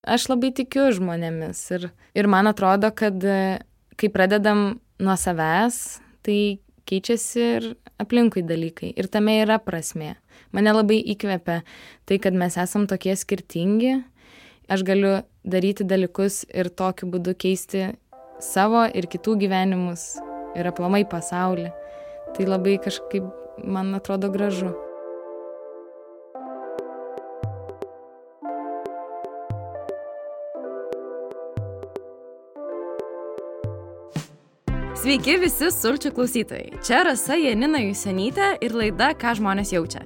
Aš labai tikiu žmonėmis ir man atrodo, kad kai pradedam nuo savęs, tai keičiasi ir aplinkui dalykai. Ir tame yra prasmė. Mane labai įkvepia tai, kad mes esam tokie skirtingi. Aš galiu daryti dalykus ir tokiu būdu keisti savo ir kitų gyvenimus ir aplamai pasaulį. Tai labai kažkaip, man atrodo, gražu. Sveiki visi sulčių klausytojai. Čia Rasa Janina Jusionytė ir laida Ką žmonės jaučia.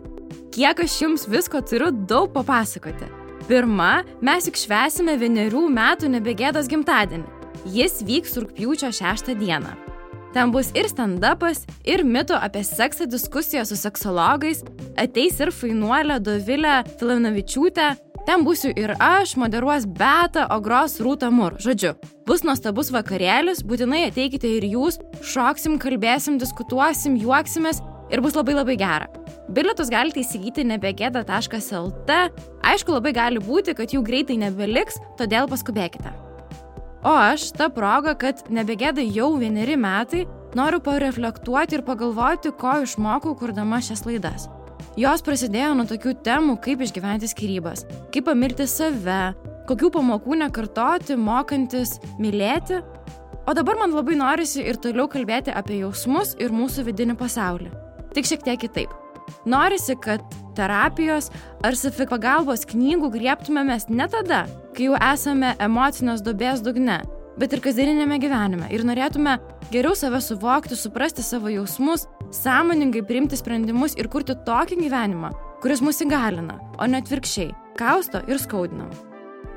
Kiek aš jums visko turiu daug papasakoti. Pirma, mes juk švęsime 1 metų Nebegėdos gimtadienį. Jis vyks rugpjūčio 6 dieną. Ten bus ir stand-upas, ir mitų apie seksą diskusijos su seksologais, ateis ir fainuolė Dovilė Filanavičiūtė. Ten būsiu ir aš, moderuos Beata, o gros Rūta Mur. Žodžiu, bus nuostabus vakarėlis, būtinai ateikite ir jūs, šoksim, kalbėsim, diskutuosim, juoksimės ir bus labai labai gera. Bilietus galite įsigyti nebegėda.lt. Aišku, labai gali būti, kad jų greitai nebeliks, todėl paskubėkite. O aš, ta proga, kad Nebegėda jau 1 metai, noriu pareflektuoti ir pagalvoti, ko išmokau kurdama šias laidas. Jos prasidėjo nuo tokių temų, kaip išgyventi skyrybas, kaip pamilti save, kokių pamokų nekartoti, mokantis mylėti. O dabar man labai norisi ir toliau kalbėti apie jausmus ir mūsų vidinį pasaulį. Tik šiek tiek kitaip. Norisi, kad terapijos ar savipagalbos knygų griebtumėmės ne tada, kai jau esame emocinės duobės dugne, bet ir kasdieninėme gyvenime ir norėtume geriau save suvokti, suprasti savo jausmus, sąmoningai priimti sprendimus ir kurti tokį gyvenimą, kuris mus įgalina, o ne atvirkščiai, kausto ir skaudina.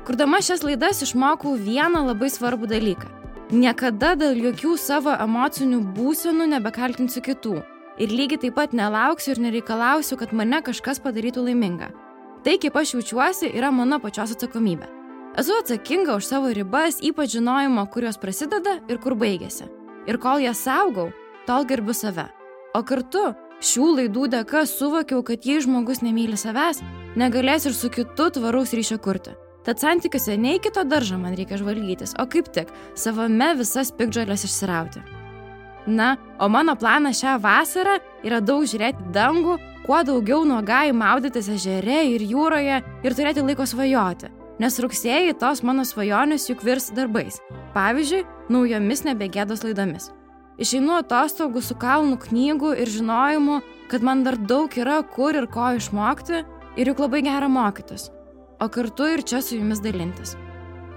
Kurdama šias laidas išmokau vieną labai svarbų dalyką. Niekada dėl jokių savo emocinių būsenų nebekaltinsiu kitų. Ir lygiai taip pat nelauksiu ir nereikalausiu, kad mane kažkas padarytų laimingą. Tai, kaip aš jaučiuosi, yra mano pačios atsakomybė. Esu atsakinga už savo ribas, ypač žinojimo, kur jos prasideda ir kur baigėsi. Ir kol jas saugau, tol gerbiu save. O kartu šių laidų dėka suvokiau, kad jei žmogus nemyli savęs, negalės ir su kitu tvaraus ryšio kurti. Tad santykiuose ne į kito daržą man reikia žvalgytis, o kaip tik savame visas piktžoles išsirauti. Na, o mano planas šią vasarą yra daug žiūrėti dangų, kuo daugiau nuogai maudytis ežere ir jūroje ir turėti laiko svajoti. Nes rugsėjį tos mano svajonės juk virs darbais. Pavyzdžiui, naujomis Nebegėdos laidomis. Išeinu atostogų su kalnu knygų ir žinojimu, kad man dar daug yra kur ir ko išmokti ir juk labai gera mokytis. O kartu ir čia su jumis dalintis.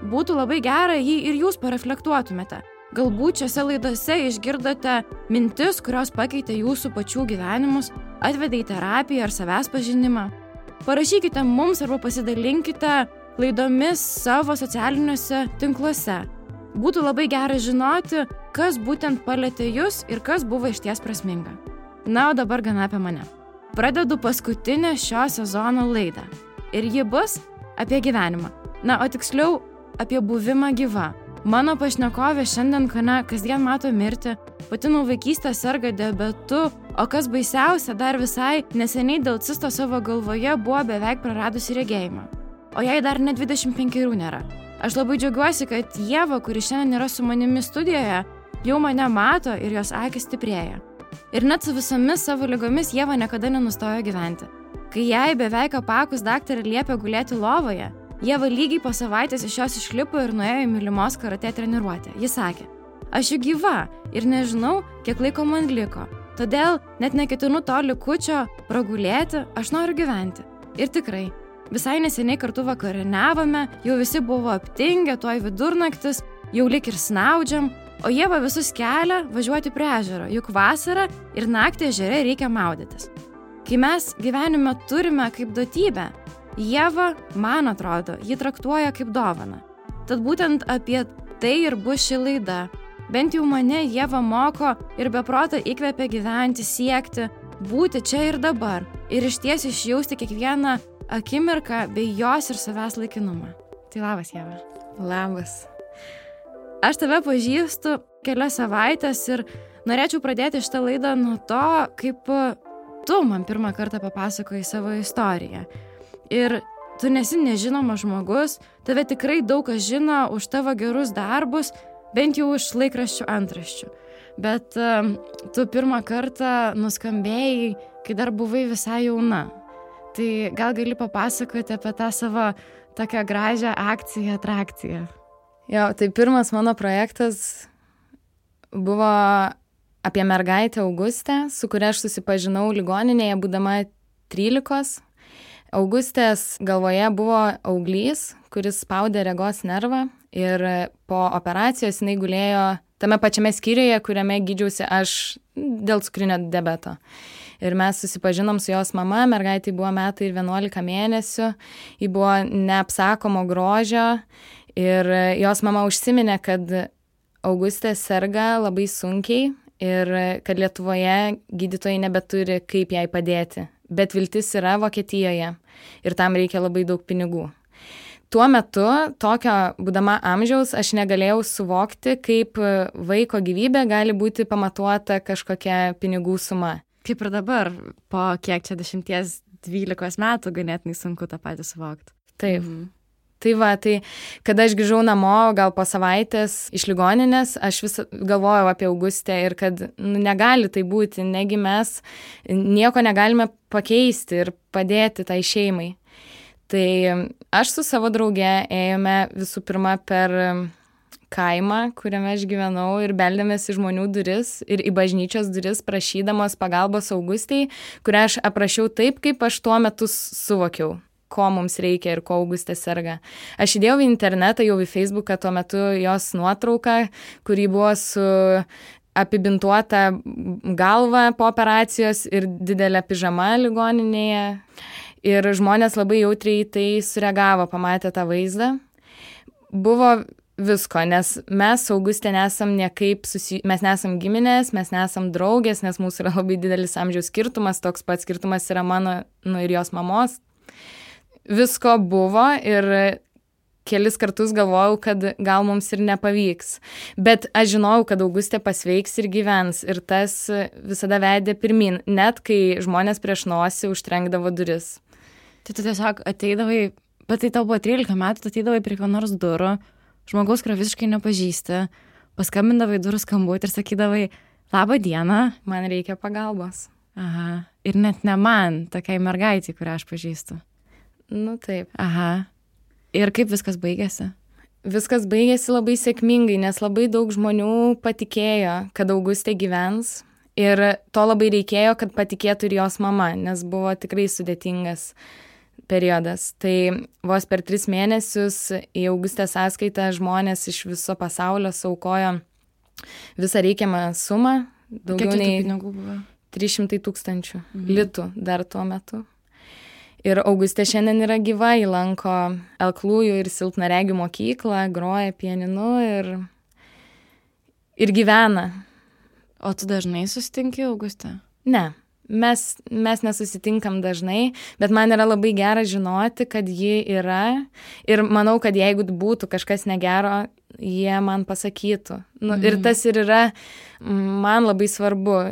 Būtų labai gera, jei ir jūs pareflektuotumėte. Galbūt šiose laidose išgirdote mintis, kurios pakeitė jūsų pačių gyvenimus, atvedė į terapiją ar savęs pažinimą. Parašykite mums arba pasidalinkite laidomis savo socialiniuose tinkluose. Būtų labai gera žinoti, kas būtent palietė jūs ir kas buvo išties prasminga. Na, o dabar gana apie mane. Pradedu paskutinę šio sezono laidą. Ir ji bus apie gyvenimą. Na, o tiksliau apie buvimą gyva. Mano pašnekovė šiandien kasdien mato mirtį, pati nuo vaikystės serga diabetu, o kas baisiausia, dar visai neseniai dėl cisto savo galvoje buvo beveik praradusi regėjimą. O jai dar net 25 nėra. Aš labai džiaugiuosi, kad Ieva, kuri šiandien yra su manimi studijoje, jau mane mato ir jos akys stiprėja. Ir net su visomis savo ligomis Ieva niekada nenustojo gyventi. Kai jai beveik apakus daktarė liepė gulėti lovoje, Ieva lygiai po savaitės iš jos išlipo ir nuėjo į mylimos karatė treniruotę. Ji sakė, aš juk gyva ir nežinau, kiek laiko man liko. Todėl net neketinu to likučio pragulėti, aš noriu gyventi. Ir tikrai, visai neseniai kartu vakarieniavome, jau visi buvo aptingę, tuoj vidurnaktis, jau lik ir snaudžiam, o Ieva visus kelia važiuoti prie ežero, juk vasarą ir naktį ežere reikia maudytis. Kai mes gyvenime turime kaip duotybę, Ieva, man atrodo, ji traktuoja kaip dovaną. Tad būtent apie tai ir bus ši laida. Bent jau mane Ieva moko ir beprotą įkvepia gyventi, siekti, būti čia ir dabar ir išties išjausti kiekvieną akimirką bei jos ir savęs laikinumą. Tai labas, Ieva. Labas. Aš tave pažįstu kelias savaitės ir norėčiau pradėti šitą laidą nuo to, kaip tu man pirmą kartą papasakojai savo istoriją. Ir tu nesi nežinomas žmogus, tave tikrai daug kas žino už tavo gerus darbus, bent jau iš laikraščių antraščių. Bet tu pirmą kartą nuskambėjai, kai dar buvai visai jauna. Tai gal gali papasakoti apie tą savo tokią gražią akciją, atrakciją? Jo, tai pirmas mano projektas buvo apie mergaitę Augustę, su kuria aš susipažinau ligoninėje, būdama 13. Augustės galvoje buvo auglys, kuris spaudė regos nervą ir po operacijos jinai gulėjo tame pačiame skyriuje, kuriame gydžiausi aš dėl cukrinio diabeto. Ir mes susipažinom su jos mama, mergaitai buvo 1 metai ir 11 mėnesių, ji buvo neapsakomo grožio ir jos mama užsiminė, kad Augustė serga labai sunkiai ir kad Lietuvoje gydytojai nebeturi kaip jai padėti. Bet viltis yra Vokietijoje ir tam reikia labai daug pinigų. Tuo metu, tokio būdama amžiaus, aš negalėjau suvokti, kaip vaiko gyvybė gali būti pamatuota kažkokia pinigų suma. Kaip ir dabar, po kiek čia 10-12 metų ganėtinai sunku tą patį suvokti. Taip. Tai va, tai kada aš grįžau namo, gal po savaitės iš ligoninės, aš vis galvojau apie Augustę ir kad negali tai būti, negi mes nieko negalime pakeisti ir padėti tai šeimai. Tai aš su savo drauge ėjome visų pirma per kaimą, kuriame aš gyvenau ir beldėmės į žmonių duris ir į bažnyčios duris prašydamos pagalbos Augustei, kurią aš aprašiau taip, kaip aš tuo metu suvokiau, ko mums reikia ir ko Augustė serga. Aš įdėjau į internetą, jau į Facebooką tuo metu jos nuotrauką, kuri buvo su apibintuota galva po operacijos ir didelė pižama ligoninėje. Ir žmonės labai jautriai tai sureagavo, pamatė tą vaizdą. Buvo visko, nes mes su Augustė nesam niekaip mes nesam giminės, mes nesam draugės, nes mūsų yra labai didelis amžiaus skirtumas, toks pats skirtumas yra mano ir jos mamos. Visko buvo ir kelis kartus galvojau, kad gal mums ir nepavyks. Bet aš žinojau, kad Augustė pasveiks ir gyvens ir tas visada vedė pirmin, net kai žmonės prieš nosį užtrenkdavo duris. Tai tu tiesiog ateidavai, bet tai tau buvo 13 metų, tu ateidavai prie ko nors durų, žmogaus, kurio visiškai nepažįsti, paskambindavai durų skambutį ir sakydavai, labą dieną, man reikia pagalbos. Aha, ir net ne man, tokiai mergaitei, kurią aš pažįstu. Nu taip. Aha. Ir kaip viskas baigėsi? Viskas baigėsi labai sėkmingai, nes labai daug žmonių patikėjo, kad Augustė gyvens. Ir to labai reikėjo, kad patikėtų ir jos mama, nes buvo tikrai sudėtingas periodas. Tai vos per 3 mėnesius į Augustės sąskaitą žmonės iš viso pasaulio suaukojo visą reikiamą sumą. Daugiau nei pinigų buvo? 300 000 litų dar tuo metu. Ir Augustė šiandien yra gyva, ji lanko aklųjų ir silpnaregių mokyklą, groja pianinu ir gyvena. O tu dažnai susitinki Augustę? Ne, mes nesusitinkam dažnai, bet man yra labai gera žinoti, kad ji yra ir manau, kad jeigu būtų kažkas negero, jie man pasakytų. Ir tas ir yra man labai svarbu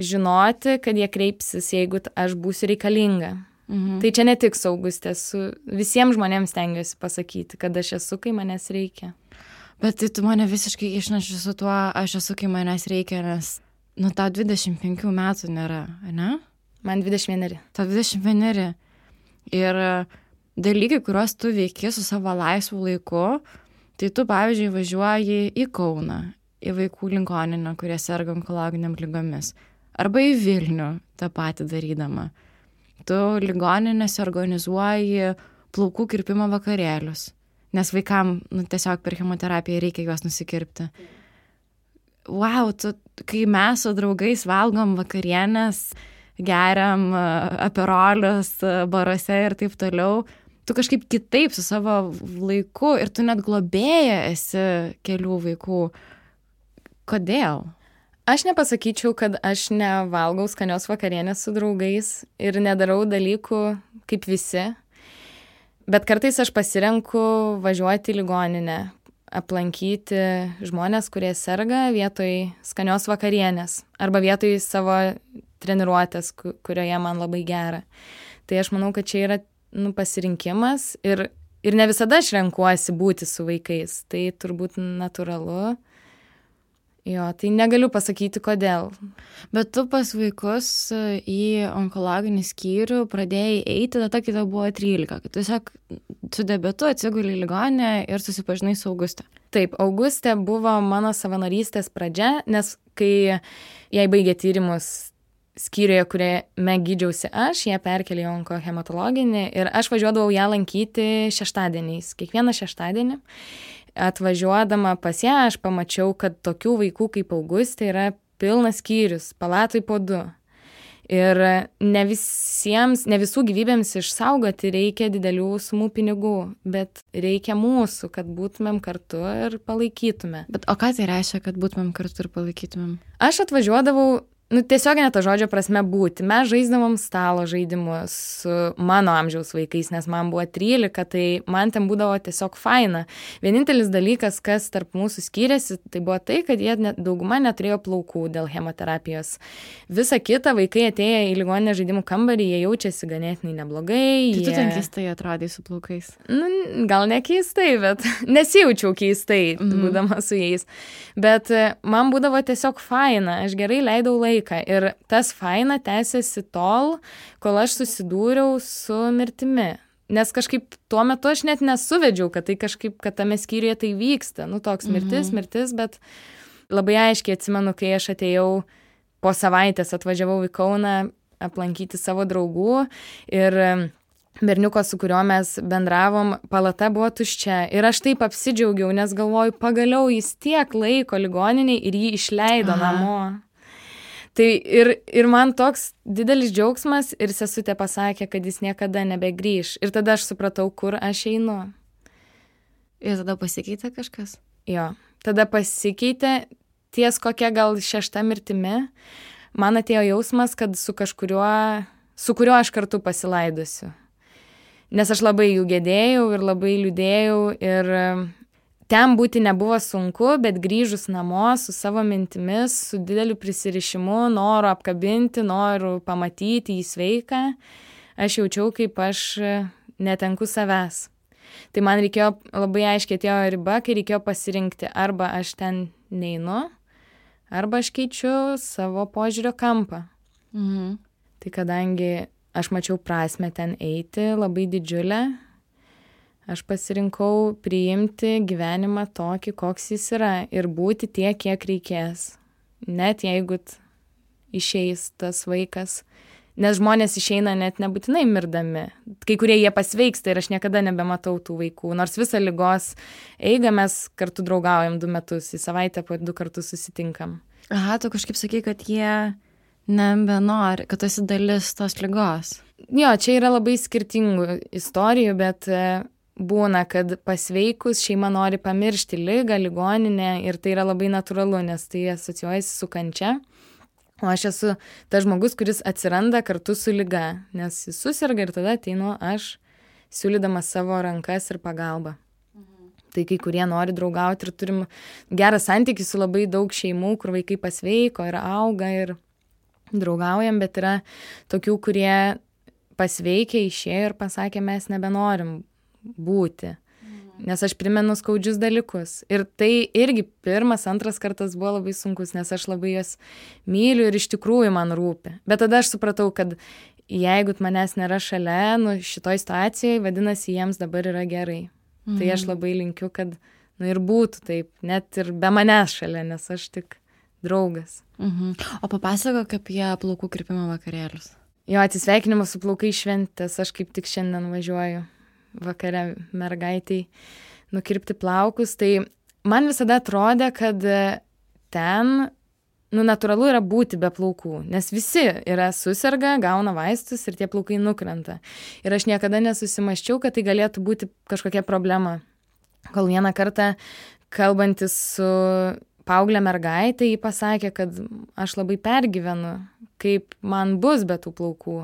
žinoti, kad jie kreipsis, jeigu aš būsiu reikalinga. Tai čia ne tik su Augustė, su visiems žmonėms stengiuosi pasakyti, kad aš esu, kai manęs reikia. Bet tai tu mane visiškai išneši su tuo, aš esu, kai manęs reikia, nes tau 25 metų nėra, ne? Man 21. Tau 21. Ir dalykai, kuriuos tu veiki su savo laisvu laiku, tai tu, pavyzdžiui, važiuoji į Kauną, į vaikų ligoninę, kurie serga onkologiniam ligomis, arba į Vilnių tą patį darydama. Tu ligoninėse organizuoji plaukų kirpimo vakarėlius, nes vaikam tiesiog per chemoterapiją reikia juos nusikirpti. Wow, kai mes su draugais valgom vakarienės, geriam aperolius baruose ir taip toliau, tu kažkaip kitaip su savo laiku ir tu net globėja esi kelių vaikų. Kodėl? Aš nepasakyčiau, kad aš nevalgau skanios vakarienės su draugais ir nedarau dalykų kaip visi, bet kartais aš pasirenku važiuoti į ligoninę, aplankyti žmonės, kurie serga vietoj skanios vakarienės arba vietoj savo treniruotės, kurioje man labai gera. Tai aš manau, kad čia yra pasirinkimas ir ne visada aš renkuosi būti su vaikais, tai turbūt natūralu. Jo, tai negaliu pasakyti, kodėl. Bet tu pas vaikus į onkologinį skyrių pradėjai eiti tada, kai tau buvo 13, kad tiesiog su diabetu atsiguli į ligoninę ir susipažinai su Auguste. Taip, Augustė buvo mano savanorystės pradžia, nes kai jai baigė tyrimus skyriuje, kuriame gydžiausi aš, ją perkelė į onkohematologinį ir aš važiuodavau ją lankyti šeštadieniais, kiekvieną šeštadienį. Atvažiuodama pas ją, aš pamačiau, kad tokių vaikų kaip Augustė yra pilnas skyrius, palatoj po 2. Ir ne visų gyvybėms išsaugoti reikia didelių sumų pinigų, bet reikia mūsų, kad būtumėm kartu ir palaikytume. Bet o ką tai reiškia, kad būtumėm kartu ir palaikytumėm? Aš atvažiuodavau, tiesioginė to žodžio prasme būti. Mes žaisdavom stalo žaidimus su mano amžiaus vaikais, nes man buvo 13, tai man ten būdavo tiesiog faina. Vienintelis dalykas, kas tarp mūsų skyrėsi, tai buvo tai, kad jie dauguma neturėjo plaukų dėl chemoterapijos. Visa kita, vaikai atėję į ligoninę žaidimų kambarį, jie jaučiasi ganėtinai neblogai. Tai tu ten keistai atrodai su plaukais? Gal ne keistai, bet nesijaučiau keistai, būdama su jais. Bet man būdavo tiesiog faina, aš gerai leidau laiką. Ir tas faina tęsiasi tol, kol aš susidūriau su mirtimi. Nes kažkaip tuo metu aš net nesuvedžiau, kad tai kažkaip, kad tame skyriuje tai vyksta. Toks mirtis, bet labai aiškiai atsimenu, kai aš atėjau po savaitės, atvažiavau į Kauną aplankyti savo draugų ir berniuko, su kuriuo mes bendravom, palata buvo tuščia. Ir aš taip apsidžiaugiau, nes galvoju, pagaliau jis tiek laiko ligoniniai ir jį išleido namo. Tai ir man toks didelis džiaugsmas ir sesutė pasakė, kad jis niekada nebegrįš. Ir tada aš supratau, kur aš einu. Ir tada pasikeitė kažkas? Jo, tada pasikeitė ties kokia gal 6 mirtimi. Man atėjo jausmas, kad su kuriuo aš kartu pasilaidusiu. Nes aš labai jų gedėjau ir labai liūdėjau ir ten būti nebuvo sunku, bet grįžus namo su savo mintimis, su dideliu prisirišimu, noru apkabinti, noru pamatyti jį sveiką, aš jaučiau, kaip aš netenku savęs. Tai man reikėjo, labai aiškiai atėjo riba, kai reikėjo pasirinkti, arba aš ten neinu, arba aš keičiu savo požiūrio kampą. Tai kadangi aš mačiau prasmę ten eiti, labai didžiulę, aš pasirinkau priimti gyvenimą tokį, koks jis yra ir būti tiek, kiek reikės. Net jeigu išeis tas vaikas. Nes žmonės išeina net nebūtinai mirdami. Kai kurie jie pasveiksta ir aš niekada nebematau tų vaikų. Nors visą ligos eigą mes kartu draugaujam 2 metus. Į savaitę po 2 kartus susitinkam. Aha, tu kažkaip sakai, kad jie nebenori, kad tu esi dalis tos ligos. Jo, čia yra labai skirtingų istorijų, bet būna, kad pasveikus šeima nori pamiršti ligą, ligoninę ir tai yra labai natūralu, nes tai asocijuojasi su kančia. O aš esu tas žmogus, kuris atsiranda kartu su liga, nes jis susirga ir tada ateinu aš, siūlydamas savo rankas ir pagalbą. Tai kai kurie nori draugauti ir turim gerą santykį su labai daug šeimų, kur vaikai pasveiko ir auga ir draugaujam, bet yra tokių, kurie pasveikė, išėjo ir pasakė, mes nebenorim būti. Nes aš primenu skaudžius dalykus. Ir tai irgi 1, 2 kartas buvo labai sunkus, nes aš labai juos myliu ir iš tikrųjų man rūpi. Bet tada aš supratau, kad jeigu manęs nėra šalia, šitoj situacijai, vadinasi, jiems dabar yra gerai. Tai aš labai linkiu, kad ir būtų taip, net ir be manęs šalia, nes aš tik draugas. O papasakok apie plaukų kirpimo vakarėlius. Jo, atsisveikinimas su plaukai šventės, aš kaip tik šiandien važiuoju vakare mergaitai nukirpti plaukus, tai man visada atrodė, kad ten, natūralu yra būti be plaukų, nes visi yra susirga, gauna vaistus ir tie plaukai nukrenta. Ir aš niekada nesusimaščiau, kad tai galėtų būti kažkokia problema. Kol vieną kartą, kalbantis su paauglė mergaitė, ji pasakė, kad aš labai pergyvenu, kaip man bus be tų plaukų.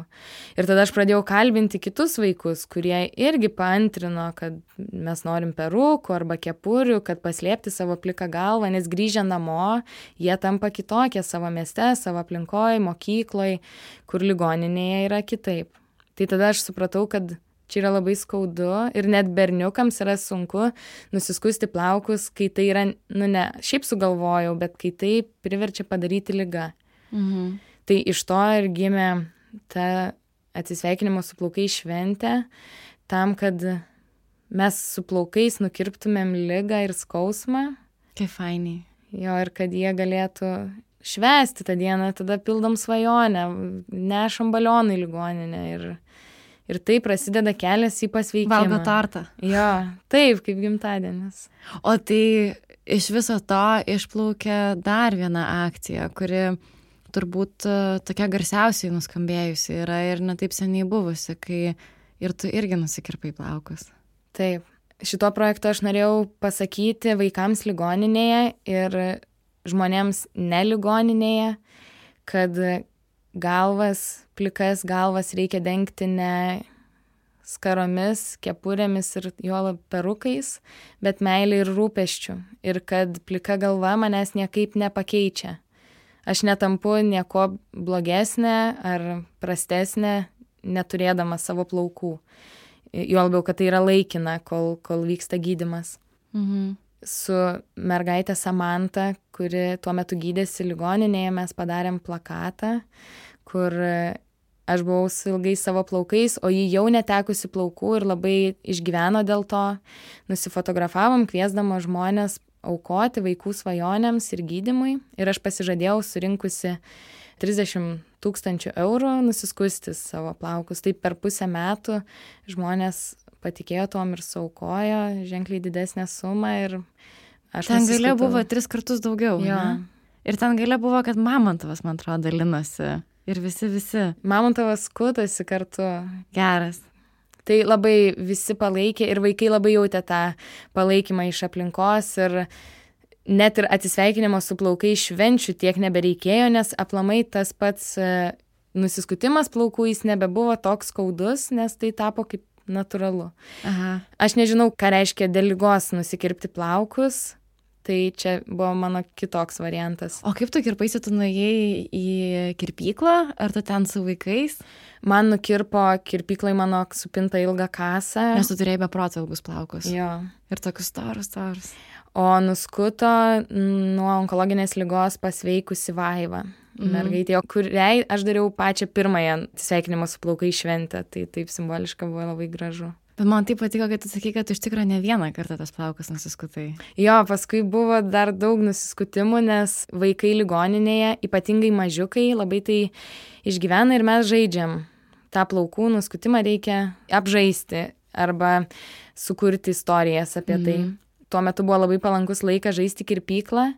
Ir tada aš pradėjau kalbinti kitus vaikus, kurie irgi paantrino, kad mes norim perukų arba kepurių, kad paslėpti savo pliką galvą, nes grįžę namo, jie tampa kitokie savo mieste, savo aplinkoje, mokykloje, kur ligoninėje yra kitaip. Tai tada aš supratau, kad Čia yra labai skaudu ir net berniukams yra sunku nusiskusti plaukus, kai tai yra, ne šiaip sugalvojau, bet kai tai priverčia padaryti liga. Tai iš to ir gimė ta atsisveikinimo su plaukais šventė, tam, kad mes su plaukais nukirptumėm ligą ir skausmą. Kaip fainiai. Jo, ir kad jie galėtų švęsti tą dieną, tada pildom svajonę, nešam balioną į ligoninę ir tai prasideda kelias į pasveikimą. Valgo tortą. Jo, taip, kaip gimtadienis. O tai iš viso to išplaukė dar viena akcija, kuri turbūt tokia garsiausiai nuskambėjusi yra ir netaip seniai buvusi, kai ir tu irgi nusikirpai plaukus. Taip. Šituo projektu aš norėjau pasakyti vaikams ligoninėje ir žmonėms ne ligoninėje, kad plikas galvas reikia dengti ne skaromis, kepurėmis ir juolab perukais, bet meilė ir rūpesčių. Ir kad plika galva manęs niekaip nepakeičia. Aš netampu nieko blogesnė ar prastesnė, neturėdama savo plaukų. Juolab, kad tai yra laikina, kol vyksta gydymas. Su mergaitė Samanta, kuri tuo metu gydėsi ligoninėje, mes padarėm plakatą, kur aš buvau su ilgais savo plaukais, o ji jau netekusi plaukų ir labai išgyveno dėl to. Nusifotografavom, kviesdama žmonės aukoti vaikų svajonėms ir gydymui. Ir aš pasižadėjau surinkusi 30 000 eurų nusiskusti savo plaukus. Tai per pusę metų žmonės patikėjo tom ir suaukojo ženkliai didesnę sumą ir aš ten gale buvo 3 kartus daugiau. Jo. Ne? Ir ten gale buvo, kad Mamontovas, man atrodo, dalinosi. Ir visi. Mamontovas skutasi kartu. Geras. Tai labai visi palaikė ir vaikai labai jautė tą palaikymą iš aplinkos ir net ir atsisveikinimo su plaukai švenčių tiek nebereikėjo, nes aplamai tas pats nusiskutimas plaukų jis nebebuvo toks skaudus, nes tai tapo kaip natūralu. Aha. Aš nežinau, ką reiškia dėl ligos nusikirpti plaukus, tai čia buvo mano kitoks variantas. O kaip tu kirpaisi, tu nuėjai į kirpyklą, ar tu ten su vaikais? Man nukirpo kirpyklai mano supintą ilgą kasą. Nes tu turėjai be proto ilgus plaukus. Jo. Ir tokius storus. O nuskuto nuo onkologinės ligos pasveikusi Vaiva. Mergaitė, kuriai aš dariau pačią pirmąją sveikinimo su plaukai šventę, tai taip simboliška buvo labai gražu. Bet man taip patiko, kad tu sakai, kad iš tikrųjų ne vieną kartą tas plaukas nusiskutai. Jo, paskui buvo dar daug nusiskutimų, nes vaikai ligoninėje, ypatingai mažiukai, labai tai išgyvena ir mes žaidžiam. tą plaukų nuskutimą reikia apžaisti arba sukurti istorijas apie tai. Tuo metu buvo labai palankus laikas žaisti kirpyklą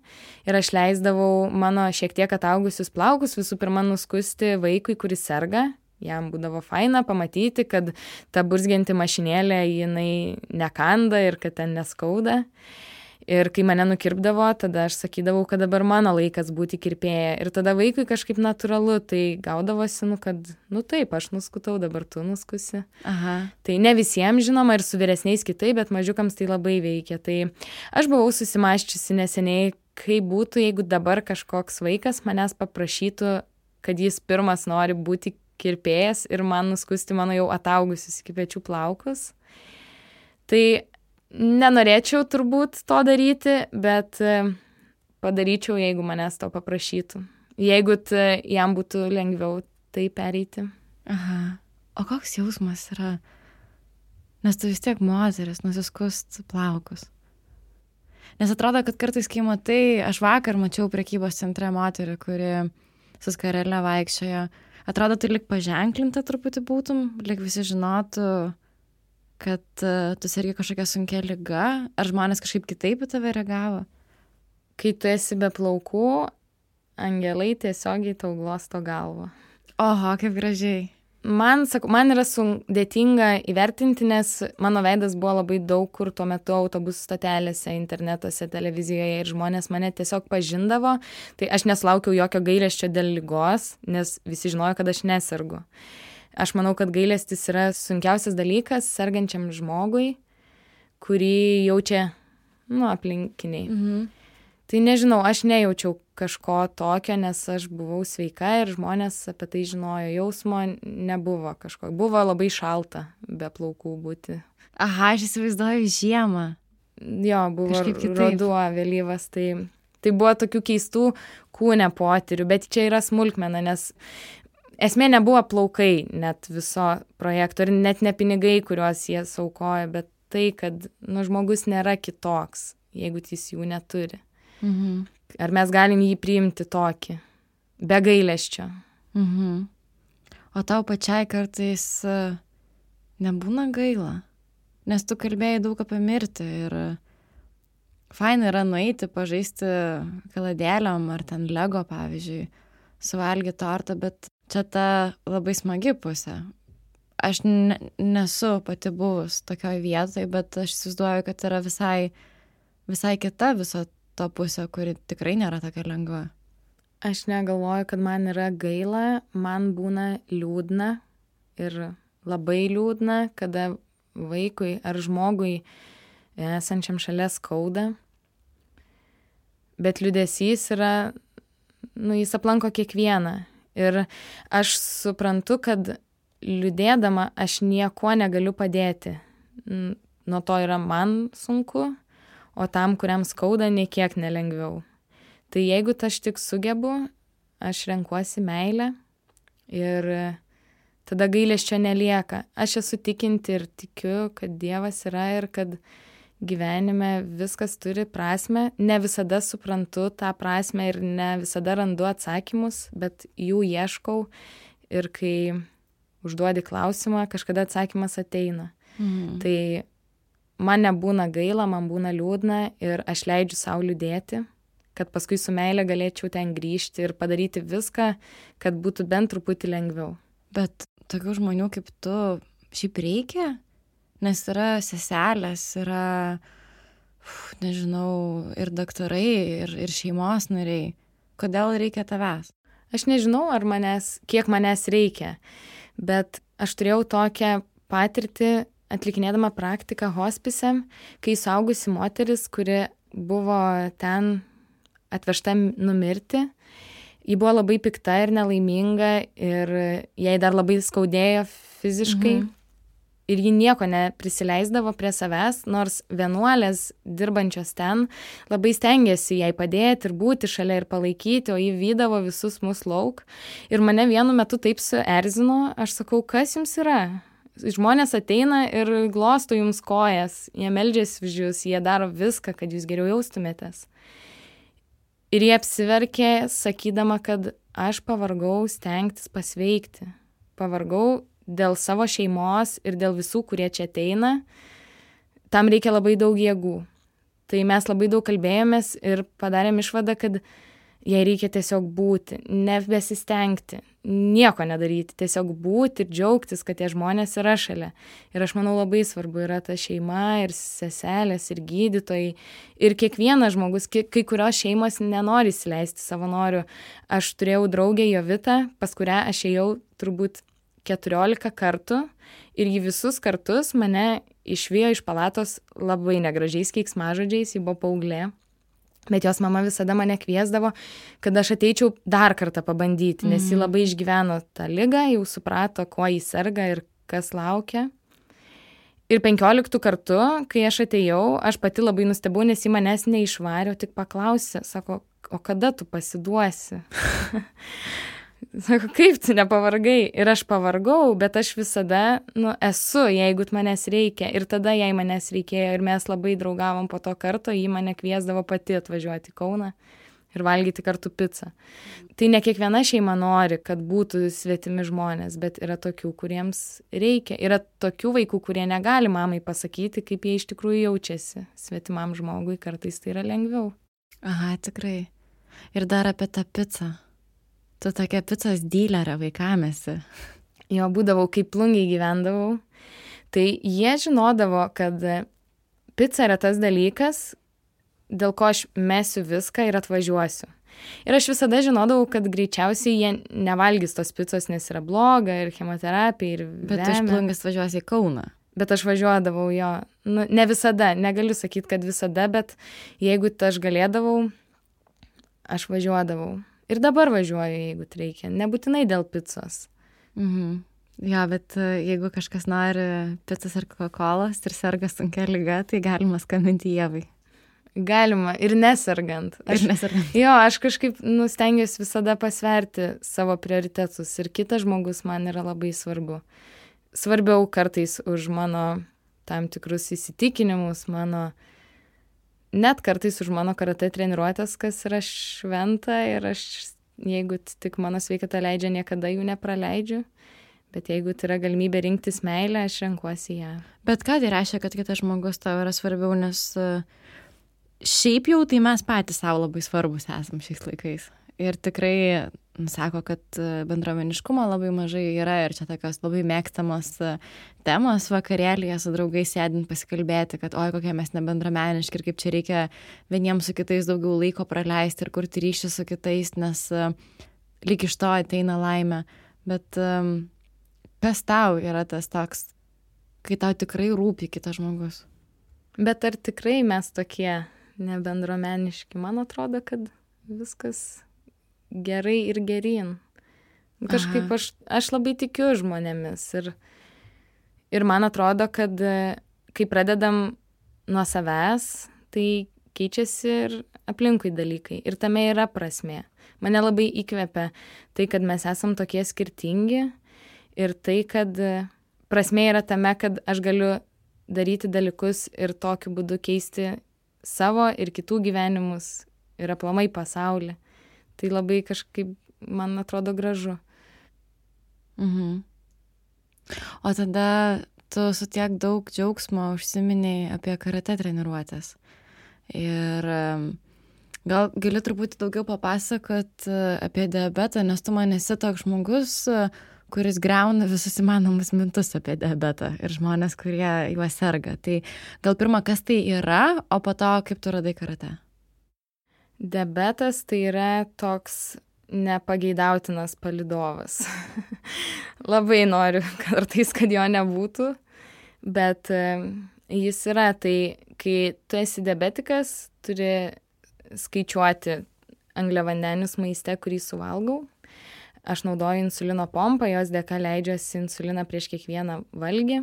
ir aš leisdavau mano šiek tiek ataugusius plaukus visų pirma nuskusti vaikui, kuris serga. Jam būdavo faina pamatyti, kad ta burzgianti mašinėlė jinai nekanda ir kad ten neskauda. Ir kai mane nukirpdavo, tada aš sakydavau, kad dabar mano laikas būti kirpėja. Ir tada vaikui kažkaip natūralu, tai gaudavosi, kad, taip, aš nuskutau, dabar tu nuskusi. Aha. Tai ne visiems žinoma ir su vyresniais kitaip, bet mažiukams tai labai veikia. Tai aš buvau susimaščiusi neseniai, kaip būtų, jeigu dabar kažkoks vaikas manęs paprašytų, kad jis pirmas nori būti kirpėjas ir man nuskusti mano jau ataugusius iki pečių plaukus. Tai nenorėčiau turbūt to daryti, bet padaryčiau, jeigu manęs to paprašytų. Jeigu jam būtų lengviau tai pereiti. Aha. O koks jausmas yra? Nes tu vis tiek moteris, nusiskust plaukus. Nes atrodo, kad kartais, kai matai, aš vakar mačiau prekybos centre moterį, kuri su skarele vaikščiojo. Atrodo, tu lik paženklinta truputį būtum, lik visi žinotų, kad tu sergi kažkokia sunkia liga, ar žmonės kažkaip kitaip į tave reagavo? Kai tu esi be plaukų, angelai tiesiogiai tau glosto galvą. Oho, kaip gražiai. Man yra sudėtinga įvertinti, nes mano veidas buvo labai daug kur tuo metu autobusų stotelėse, internetuose, televizijoje ir žmonės mane tiesiog pažindavo. Tai aš nesulaukiau jokio gailesčio dėl ligos, nes visi žinojo, kad aš nesergu. Aš manau, kad gailestis yra sunkiausias dalykas sergančiam žmogui, kurį jaučia, aplinkiniai. Tai nežinau, aš nejaučiau kažko tokio, nes aš buvau sveika ir žmonės apie tai žinojo. Jausmo nebuvo kažko. Buvo labai šalta be plaukų būti. Aha, aš įsivaizduoju žiemą. Jo, buvo ruduo vėlyvas, tai buvo tokių keistų kūne potyrių, bet čia yra smulkmena, nes esmė nebuvo plaukai net viso projekto ir net ne pinigai, kuriuos jie saukoja, bet tai, kad žmogus nėra kitoks, jeigu jis jų neturi. Mhm. Ar mes galim jį priimti tokį, be gailesčio. Mhm. O tau pačiai kartais nebūna gaila? Nes tu kalbėjai daug apie mirtį ir faina yra nueiti, pažaisti kaladėlėm ar ten Lego, pavyzdžiui, suvalgyti tortą, bet čia ta labai smagi pusė. Aš nesu pati buvus tokioj vietoj, bet aš įsivaizduoju, kad yra visai kita viso to pusė, kuri tikrai nėra tokia lengva. Aš negalvoju, kad man yra gaila, man būna liūdna ir labai liūdna, kada vaikui ar žmogui esančiam šalia skauda. Bet liūdesys yra, jis aplanko kiekvieną. Ir aš suprantu, kad liūdėdama aš nieko negaliu padėti. Nuo to yra man sunku, o tam, kuriam skauda, nei kiek nelengviau. Tai jeigu aš tik sugebu, aš renkuosi meilę ir tada gailesčio nelieka. Aš esu tikinti ir tikiu, kad Dievas yra ir kad gyvenime viskas turi prasmę. Ne visada suprantu tą prasmę ir ne visada randu atsakymus, bet jų ieškau ir kai užduodi klausimą, kažkada atsakymas ateina. Mhm. Tai man nebūna gaila, man būna liūdna ir aš leidžiu sau liūdėti, kad paskui su meilė galėčiau ten grįžti ir padaryti viską, kad būtų bent truputį lengviau. Bet tokių žmonių kaip tu šiaip reikia? Nes yra seselės, yra, nežinau, ir daktarai, ir šeimos nariai. Kodėl reikia tavęs? Aš nežinau, kiek manęs reikia, bet aš turėjau tokią patirtį atlikinėdama praktiką hospise, kai suaugusi moteris, kuri buvo ten atvežta numirti, ji buvo labai pikta ir nelaiminga ir jai dar labai skaudėjo fiziškai. Mhm. Ir ji nieko neprisileisdavo prie savęs, nors vienuolės dirbančios ten labai stengiasi jai padėti ir būti šalia ir palaikyti, o ji vydavo visus mus lauk. Ir mane vienu metu taip suerzino, aš sakau, kas jums yra? Žmonės ateina ir glosto jums kojas, jie meldžiasi už jūs, jie daro viską, kad jūs geriau jaustumėtės. Ir jie apsiverkė, sakydama, kad aš pavargau stengtis pasveikti. Pavargau dėl savo šeimos ir dėl visų, kurie čia ateina. Tam reikia labai daug jėgų. Tai mes labai daug kalbėjomės ir padarėm išvadą, kad jai reikia tiesiog būti, nebesistengti, nieko nedaryti, tiesiog būti ir džiaugtis, kad tie žmonės yra šalia. Ir aš manau labai svarbu yra ta šeima ir seselės ir gydytojai. Ir kiekvienas žmogus, kai kurios šeimos nenori įsileisti savanorių. Aš turėjau draugę Jovitą, pas kurią aš ėjau turbūt 14 kartų ir ji visus kartus mane išvijo iš palatos labai negražiais keiksmažodžiais, ji buvo paauglė. Bet jos mama visada mane kviesdavo, kad aš ateičiau dar kartą pabandyti, nes ji labai išgyveno tą ligą, jau suprato, kuo jis serga ir kas laukia. Ir 15 kartų, kai aš atėjau, aš pati labai nustebau, nes ji manęs neišvarė, tik paklausė, sako, o kada tu pasiduosi? Sako, kaip tu nepavargai? Ir aš pavargau, bet aš visada, esu, jeigu manęs reikia. Ir tada jai manęs reikėjo ir mes labai draugavom po to karto, ji mane kviesdavo pati atvažiuoti į Kauną ir valgyti kartu pizzą. Tai ne kiekviena šeima nori, kad būtų svetimi žmonės, bet yra tokių, kuriems reikia. Yra tokių vaikų, kurie negali mamai pasakyti, kaip jie iš tikrųjų jaučiasi svetimam žmogui, kartais tai yra lengviau. Aha, tikrai. Ir dar apie tą pizzą. Tu tokia picos dylerė vaikamėsi. Jo, būdavau, kaip plungiai gyvendavau. Tai jie žinodavo, kad pica yra tas dalykas, dėl ko aš mesiu viską ir atvažiuosiu. Ir aš visada žinodavau, kad greičiausiai jie nevalgys tos picos, nes yra bloga ir chemoterapija ir vemia. Bet tu iš Plungės važiuosi į Kauną. Bet aš važiuodavau jo. Ne visada, negaliu sakyti, kad visada, bet jeigu aš galėdavau, aš važiuodavau. Ir dabar važiuoju, jeigu reikia. Nebūtinai dėl picos. Jo, bet jeigu kažkas nori picos ar Coca-Colos ir serga sunkia liga, tai galima skambinti Ievai. Galima ir nesergant. Jo, aš kažkaip stengiuosi visada pasverti savo prioritetus ir kitas žmogus man yra labai svarbu. Svarbiau kartais už mano tam tikrus įsitikinimus, net kartais už mano karatė treniruotės, kas yra šventa ir aš, jeigu tik mano sveikata leidžia, niekada jų nepraleidžiu. Bet jeigu tai yra galimybė rinktis meilę, aš renkuosi ją. Bet ką tai reiškia, kad kitas žmogus tau yra svarbiau, nes šiaip jau tai mes patys savo labai svarbus esam šiais laikais. Ir tikrai sako, kad bendruomeniškumo labai mažai yra ir čia tokios labai mėgstamos temos vakarėlyje su draugais sėdint pasikalbėti, kad oi, kokie mes nebendruomeniški ir kaip čia reikia vieniems su kitais daugiau laiko praleisti ir kurti ryšį su kitais, nes lyg iš to ateina laimė. Bet kas tau yra tas toks, kai tau tikrai rūpi kitas žmogus? Bet ar tikrai mes tokie nebendruomeniški? Man atrodo, kad viskas gerai ir geryn. Kažkaip aš labai tikiu žmonėmis ir man atrodo, kad kai pradedam nuo savęs, tai keičiasi ir aplinkui dalykai. Ir tame yra prasmė. Mane labai įkvepia tai, kad mes esam tokie skirtingi ir tai, kad prasmė yra tame, kad aš galiu daryti dalykus ir tokiu būdu keisti savo ir kitų gyvenimus ir aplamai pasaulį. Tai labai kažkaip, man atrodo, gražu. O tada tu su tiek daug džiaugsmo užsiminėjai apie karatė treniruotės. Ir gal gali truputį daugiau papasakot apie diabetą, nes tu man esi toks žmogus, kuris griauna visus įmanomus mintus apie diabetą ir žmonės, kurie juo serga. Tai gal pirma, kas tai yra, o po to, kaip tu radai karatė? Diabetas tai yra toks nepageidautinas palydovas. Labai noriu kartais, kad jo nebūtų, bet jis yra. Tai kai tu esi diabetikas, turi skaičiuoti angliavandenius maiste, kurį suvalgau. Aš naudoju insulino pompą, jos dėka leidžiuosi insuliną prieš kiekvieną valgį.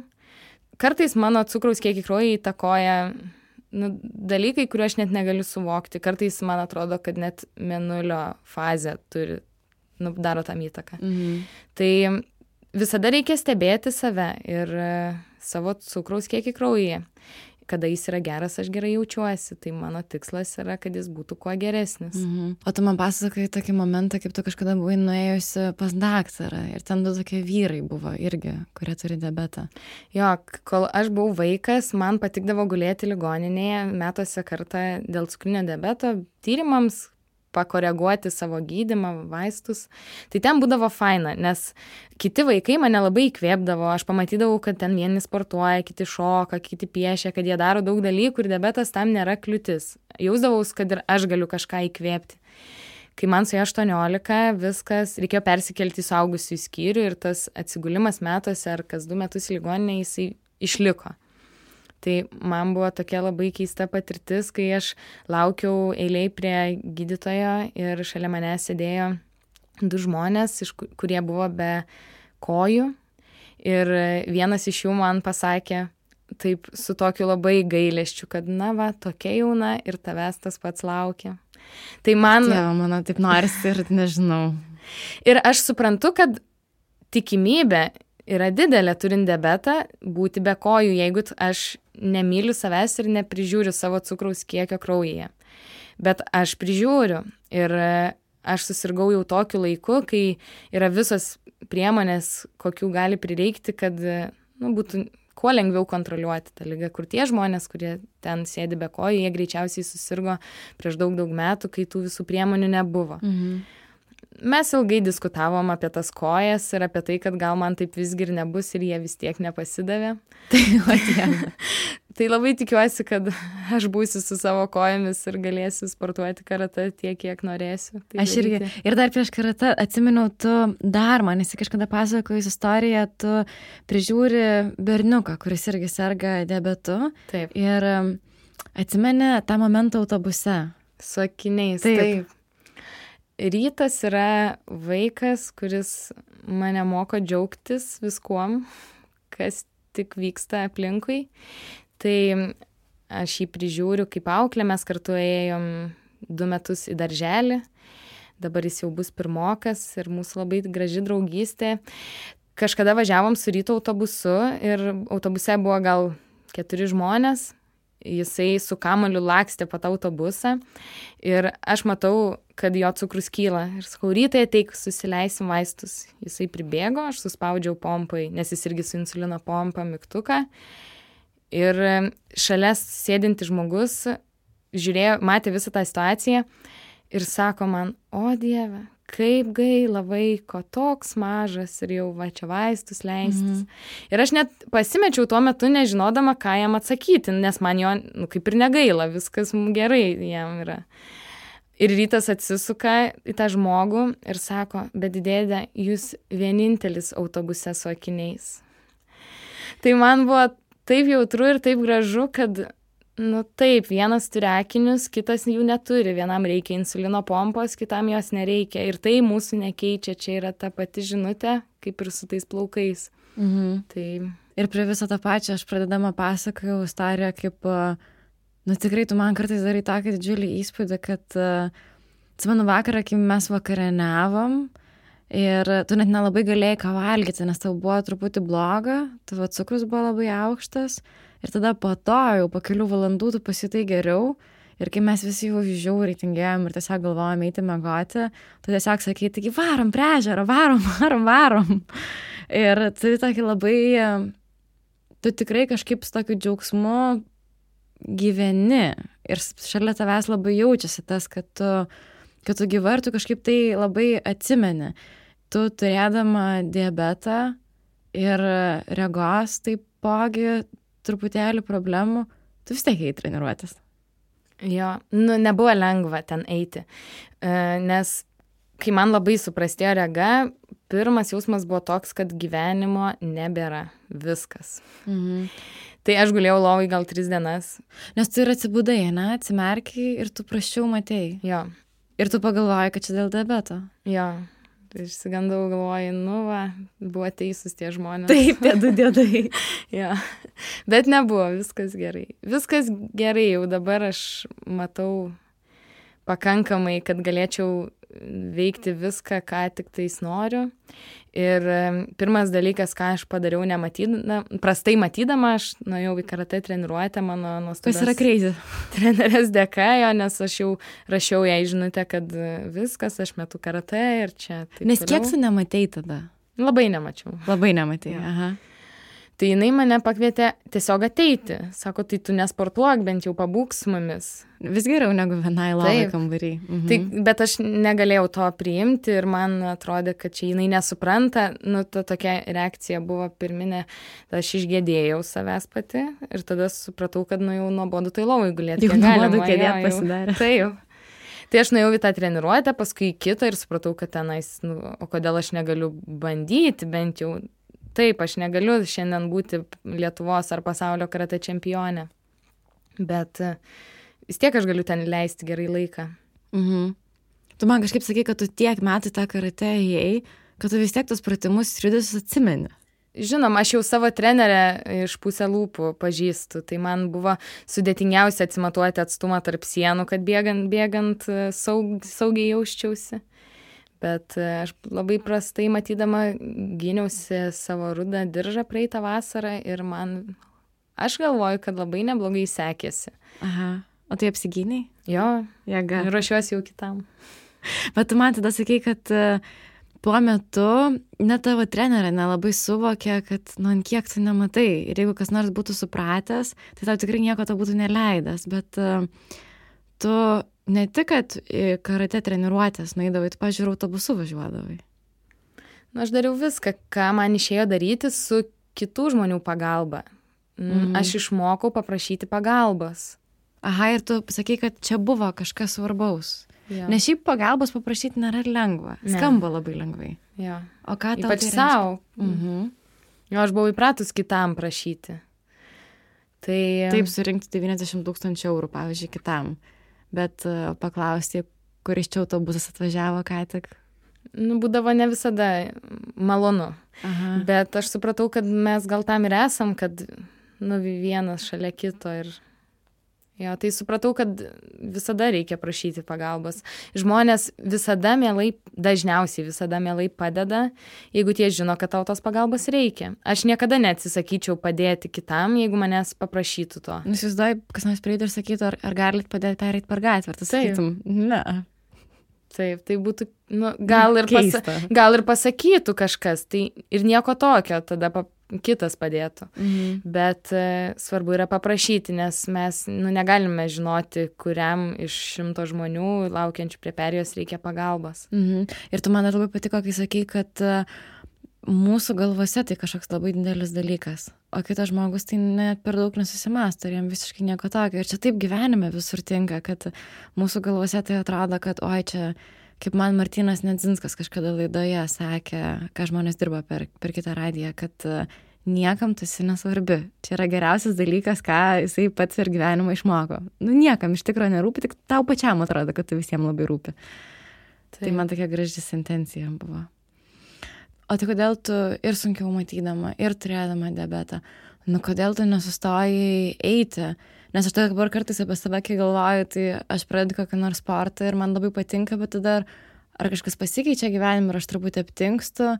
Kartais mano cukraus kiekį kraujyje įtakoja dalykai, kuriuo aš net negaliu suvokti. Kartais man atrodo, kad net mėnulio fazė daro tam įtaką. Tai visada reikia stebėti save ir savo cukraus kiekį kraujyje. Kada jis yra geras, aš gerai jaučiuosi. Tai mano tikslas yra, kad jis būtų kuo geresnis. O tu man pasakai tokį momentą, kaip tu kažkada buvai nuėjusi pas daktarą. Ir ten du tokie vyrai buvo irgi, kurie turi diabetą. Jo, kol aš buvau vaikas, man patikdavo gulėti ligoninėje metuose kartą dėl cukrinio diabeto tyrimams, pakoreguoti savo gydymą, vaistus. Tai ten būdavo faina, nes kiti vaikai mane labai įkvėpdavo. Aš pamatydavau, kad ten vieni sportuoja, kiti šoka, kiti piešia, kad jie daro daug dalykų ir diabetas tam nėra kliūtis. Jausdavaus, kad ir aš galiu kažką įkvėpti. Kai man suėjo 18, viskas, reikėjo persikelti į suaugusiųjų skyrių ir tas atsigulimas metuose ar kas 2 metus ligoninė jisai išliko. Tai man buvo tokia labai keista patirtis, kai aš laukiau eilėj prie gydytojo ir šalia mane sėdėjo 2 žmonės, kurie buvo be kojų. Ir vienas iš jų man pasakė taip su tokiu labai gailesčiu, kad tokia jauna ir tavęs tas pats laukia. Tai man... Dieve, mano taip norisi ir nežinau. Ir aš suprantu, kad tikimybė yra didelė turint diabetą būti be kojų, jeigu aš nemyliu savęs ir neprižiūriu savo cukraus kiekio kraujyje. Bet aš prižiūriu ir aš susirgau jau tokiu laiku, kai yra visos priemonės, kokių gali prireikti, kad būtų kuo lengviau kontroliuoti tą ligą. Kur tie žmonės, kurie ten sėdi be kojų, jie greičiausiai susirgo prieš daug metų, kai tų visų priemonių nebuvo. Mes ilgai diskutavom apie tas kojas ir apie tai, kad gal man taip visgi ir nebus ir jie vis tiek nepasidavė. Tai labai tikiuosi, kad aš būsiu su savo kojomis ir galėsiu sportuoti karatė tiek, kiek norėsiu. Tai aš irgi. Ir dar prieš karatę atsiminiau, tu dar man esi kažkada pasakojus istoriją, tu prižiūri berniuką, kuris irgi serga diabetu. Taip. Ir atsimeni tą momentą autobuse. Su akiniais. Taip. Rytas yra vaikas, kuris mane moko džiaugtis viskuom, kas tik vyksta aplinkui. Tai aš jį prižiūriu kaip auklė, mes kartu ėjom 2 metus į darželį, dabar jis jau bus 1 ir mūsų labai graži draugystė. Kažkada važiavom su ryto autobusu ir autobuse buvo gal 4 žmonės, jisai su kamuoliu lakstė po tą autobusą ir aš matau, kad jo cukrus kyla. Ir sakau, Rytai ateik, susileisim vaistus. Jisai pribėgo, aš suspaudžiau pompai, nes jis irgi su insulino pompa mygtuką. Ir šalia sėdinti žmogus žiūrėjo, matė visą tą situaciją ir sako man, o Dieve, kaip gaila vaiko, toks mažas ir jau va čia vaistus leistis. Ir aš net pasimečiau tuo metu, nežinodama, ką jam atsakyti, nes man jo kaip ir negaila, viskas gerai jam yra. Ir Rytas atsisuka į tą žmogų ir sako, bet dėdė, jūs vienintelis autobuse su akiniais. Tai man buvo taip jautru ir taip gražu, kad, taip, vienas turi akinius, kitas jų neturi. Vienam reikia insulino pompos, kitam jos nereikia. Ir tai mūsų nekeičia. Čia yra ta pati žinutė, kaip ir su tais plaukais. Tai... Ir prie viso tą pačią aš pradedama pasakojau istoriją, kaip, tikrai tu man kartais darai tokį didžiulį įspūdį, kad, atsimenu vakarą, kai mes vakarieniavom, ir tu net nelabai galėjai ką valgyti, nes tau buvo truputį bloga, tavo cukrus buvo labai aukštas ir tada po to jau po kelių valandų tu pasijutai geriau ir kai mes visi jau žiauriai tingėjom ir tiesiog galvojom eiti miegoti, tu tiesiog sakei, taigi varom prie ežero, varom. Ir tu tokį labai, tu tikrai kažkaip su tokiu džiaugsmu gyveni ir šalia tavęs labai jaučiasi tas, kad tu gyva ir tu kažkaip tai labai atsimeni. Tu turėdama diabetą ir regos taipogi truputėlį problemų, tu vis tiek eiti treniruotis. Jo, nebuvo lengva ten eiti, nes kai man labai suprastėjo rega, pirmas jausmas buvo toks, kad gyvenimo nebėra viskas. Tai aš gulėjau lovai gal 3 dienas. Nes tu ir atsibudai, atsimerkiai ir tu prasčiau matei. Jo. Ir tu pagalvojai, kad čia dėl diabeto. Jo. Tai išsigandau, galvoju, buvo teisūs tie žmonės. Taip, tie 2 diedai. Jo. Bet nebuvo, viskas gerai. Viskas gerai, jau dabar aš matau pakankamai, kad galėčiau veikti viską, ką tik tais noriu. Ir pirmas dalykas, ką aš padariau prastai matydama, aš nuėjau į karatė treniruotę, mano nuostabios kas yra crazy trenerės dėka, nes aš jau rašiau jai žinutę, kad viskas, aš metu karatė ir čia. Nes kiek tu nematei tada? Labai nemačiau. Labai nematei, ja. Aha. Tai jinai mane pakvietė tiesiog ateiti. Sako, tai tu nesportuok, bent jau pabūk su mumis. Vis geriau negu vienai lovai kambarį. Tai, bet aš negalėjau to priimti ir man atrodė, kad čia jinai nesupranta. Ta tokia reakcija buvo pirminė. Aš išgėdėjau savęs pati ir tada supratau, kad jau nuobodu tai lovai gulėti. Jau nuobodu kėdėt pasidarė. Taip. Tai aš nuėjau į tą treniruotę, paskui į kitą ir supratau, kad tenais, o kodėl aš negaliu bandyti bent jau. Taip, aš negaliu šiandien būti Lietuvos ar pasaulio karatė čempionė, bet vis tiek aš galiu ten leisti gerai laiką. Tu man kažkaip sakai, kad tu tiek metų tą karatė ėjai, kad tu vis tiek tos pratimus ir judesius atsimeni. Žinoma, aš jau savo trenerę iš pusę lūpų pažįstu, tai man buvo sudėtingiausia atsimatuoti atstumą tarp sienų, kad bėgant saugiai jausčiausi. Bet aš labai prastai matydama gyniausi savo rudą diržą praeitą vasarą ir aš galvoju, kad labai neblogai sekėsi. Aha. O tai apsigyniai? Jo. Jėga. Ruošiuosi jau kitam. Bet tu man tada sakei, kad tuo metu net tavo trenerė nelabai suvokė, kad kiek tu nematai. Ir jeigu kas nors būtų supratęs, tai tau tikrai nieko to būtų neleidęs. Bet tu ne tik, kad karatė treniruotės nueidavai, tu, pažiūrėjau, autobusu važiuodavai. Aš dariau viską, ką man išėjo daryti su kitų žmonių pagalba. Aš išmokau paprašyti pagalbos. Aha, ir tu sakei, kad čia buvo kažkas svarbaus. Ja. Nes šiaip pagalbos paprašyti nėra lengva. Skamba labai lengvai. Ja. O ką tau ypač savo. Jo, aš buvau įpratus kitam prašyti. Taip, surinkti 90 000 eurų, pavyzdžiui, kitam. Bet paklausti, kuris čia autobusas atvažiavo ką tik? Nu, būdavo ne visada malonu. Aha. Bet aš supratau, kad mes gal tam ir esam, kad vienas šalia kito ir jo, tai supratau, kad visada reikia prašyti pagalbos. Žmonės dažniausiai visada mielai padeda, jeigu tie žino, kad tau tos pagalbos reikia. Aš niekada neatsisakyčiau padėti kitam, jeigu manęs paprašytų to. Įsivaizduoju, kas nors prieitų ir sakytų, ar galit padėti pereit per gatvę, ar tu sakytum, ne. Taip, tai būtų, gal ir pasakytų kažkas, tai ir nieko tokio, tada kitas padėtų. Bet svarbu yra paprašyti, nes mes negalime žinoti, kuriam iš 100 žmonių laukiančių prie perėjos reikia pagalbos. Ir tu man labai patiko, kai sakai, kad mūsų galvose tai kažkoks labai didelis dalykas, o kitas žmogus tai net per daug nesusimąsto ir jam visiškai nieko tokio. Ir čia taip gyvenime visur tinka, kad mūsų galvose tai atrodo, kad oi čia, kaip man Martynas Nedzinskas kažkada laidoje sakė, ką žmonės dirba per kitą radiją, kad niekam tu esi nesvarbi. Čia yra geriausias dalykas, ką jisai pats ir gyvenimą išmoko. Niekam iš tikrųjų nerūpi, tik tau pačiam atrodo, kad tu visiems labai rūpi. Tai man tokia graži sentencija buvo. O tai kodėl tu ir sunkiau matydama, ir turėdama diabetą, kodėl tu nesustojai eiti? Nes aš dabar kartais apie save, kai galvoju, tai aš pradedu kokį nors sportą ir man labai patinka, bet tada ar kažkas pasikeičia gyvenime ir aš truputį aptingstu